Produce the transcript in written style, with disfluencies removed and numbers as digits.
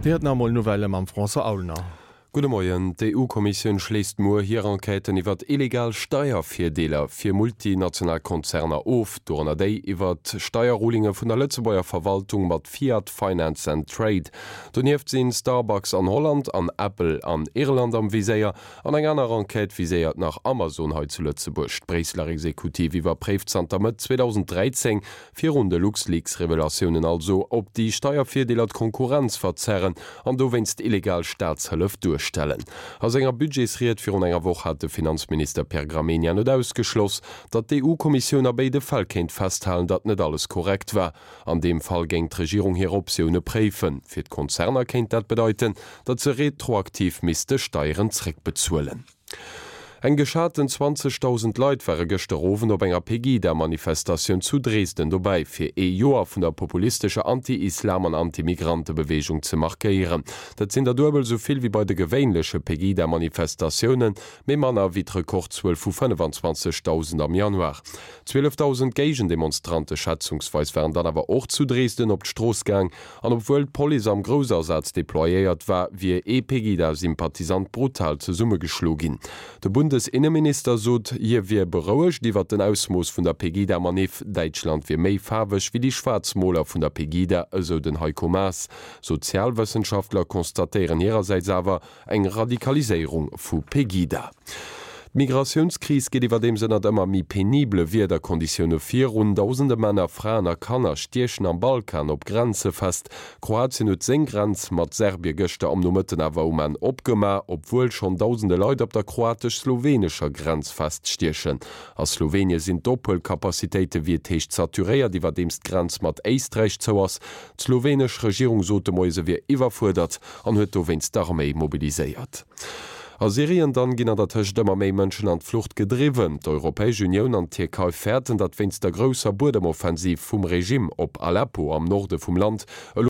Dir huet nach emol Nouvellë mam François Aulner. Gudde Moien. D'EU-Kommissioun schléisst muer hir Enquêten iwwert illegal Steiervirdeeler fir multinational Konzerner of, dorënner déi iwwert Steierrulinge vun der Lëtzebuerger Verwaltung mat Fiat Finance and Trade. Donieft sinn Starbucks an Holland an Apple an Irland am Viséier. An eng aner Enquête viséiert nach Amazon hei zu Lëtzebuerg. D'Bréisseler Exekutiv iwwerpréift zanter Mëtt 2013 Virun de LuxLeaks-Revelatiounen also, ob déi Steiervirdeeler d'Konkurrenz verzerren an dowéinst illegal Staatshëllef duerstellen. A senger Budgetsried virun enger Woch hat de Finanzminister Pierre Gramegna net ausgeschloss, datt d'EU-Kommissioun a béide Fäll kéint festhalen, datt net alles korrekt war. An deem Fall géing d'Regierung hir Optioune préifen. Fir d'Konzerner kéint dat bedeiten, datt se retroaktiv misste Steieren zréckbezuelen. Eng geschaten 20.000 Leit ware gëschter Owend op enger Pegida-Manifestatioun zu Dresden dobäi, fir ee Joer vun der populistescher Anti-Islam an Anti-Migrantebeweegung ze markéieren. Dat sinn der duebel esou vill wéi bei de gewéinleche Pegida-Manifestatiounen, mee manner wéi d'Rekordzuel vu 25.000 am Januar. 12.000 Géigendemonstrante schätzungsweis waren dann awer och zu Dresden op d'Strooss gaang, An obwuel d'Police am Groussasaz deployéiert war, wier ee Pegida-Sympathisant brutal zesummegeschlo ginn. De Bundesinneminister sot, hie wier berouegt iwwer den Ausmooss vun der Pegida-Maniff. Däitschland wier méi faarweg wéi déi Schwaarzmoler vun der Pegida, esou den Heiko Maas. Sozialwëssenschaftler constatéieren hirersäits awer, Eng Radikaliséierung vu Pegida. D'Migratiounskris geet iwwerdeems ënnert ëmmer méi penibele Wiederkonditioune virun. Dausende Männer, Fraen a Kanner stiechen am Balkan op Grenze fest. Kroatien huet seng Grenz mat Serbie gëschter am Nomëtten awer um Enn opgemaach, obwuel schonn dausende Leit op der kroatesch-slowenescher Grenz feststiechen. A Slowenie sinn d'Ophuelcapacitéite wéi et heescht saturéiert, iwwerdeems d'Grenz mat Éisträich zou ass. D'slowenesch Regierung sot de Moie se wier iwwerfuerdert an huet dowéinst d'Arméi mobiliséiert. A Syrien dann ginn an der Tëscht ëmmer méi Mënschen an d'Flucht gedriwwen. D'Europäesch Unioun an d'Tierkei fäerten, datt wéinst der grousser Buedemoffensiv vum Regime op Aleppo am Norde vum Land elo.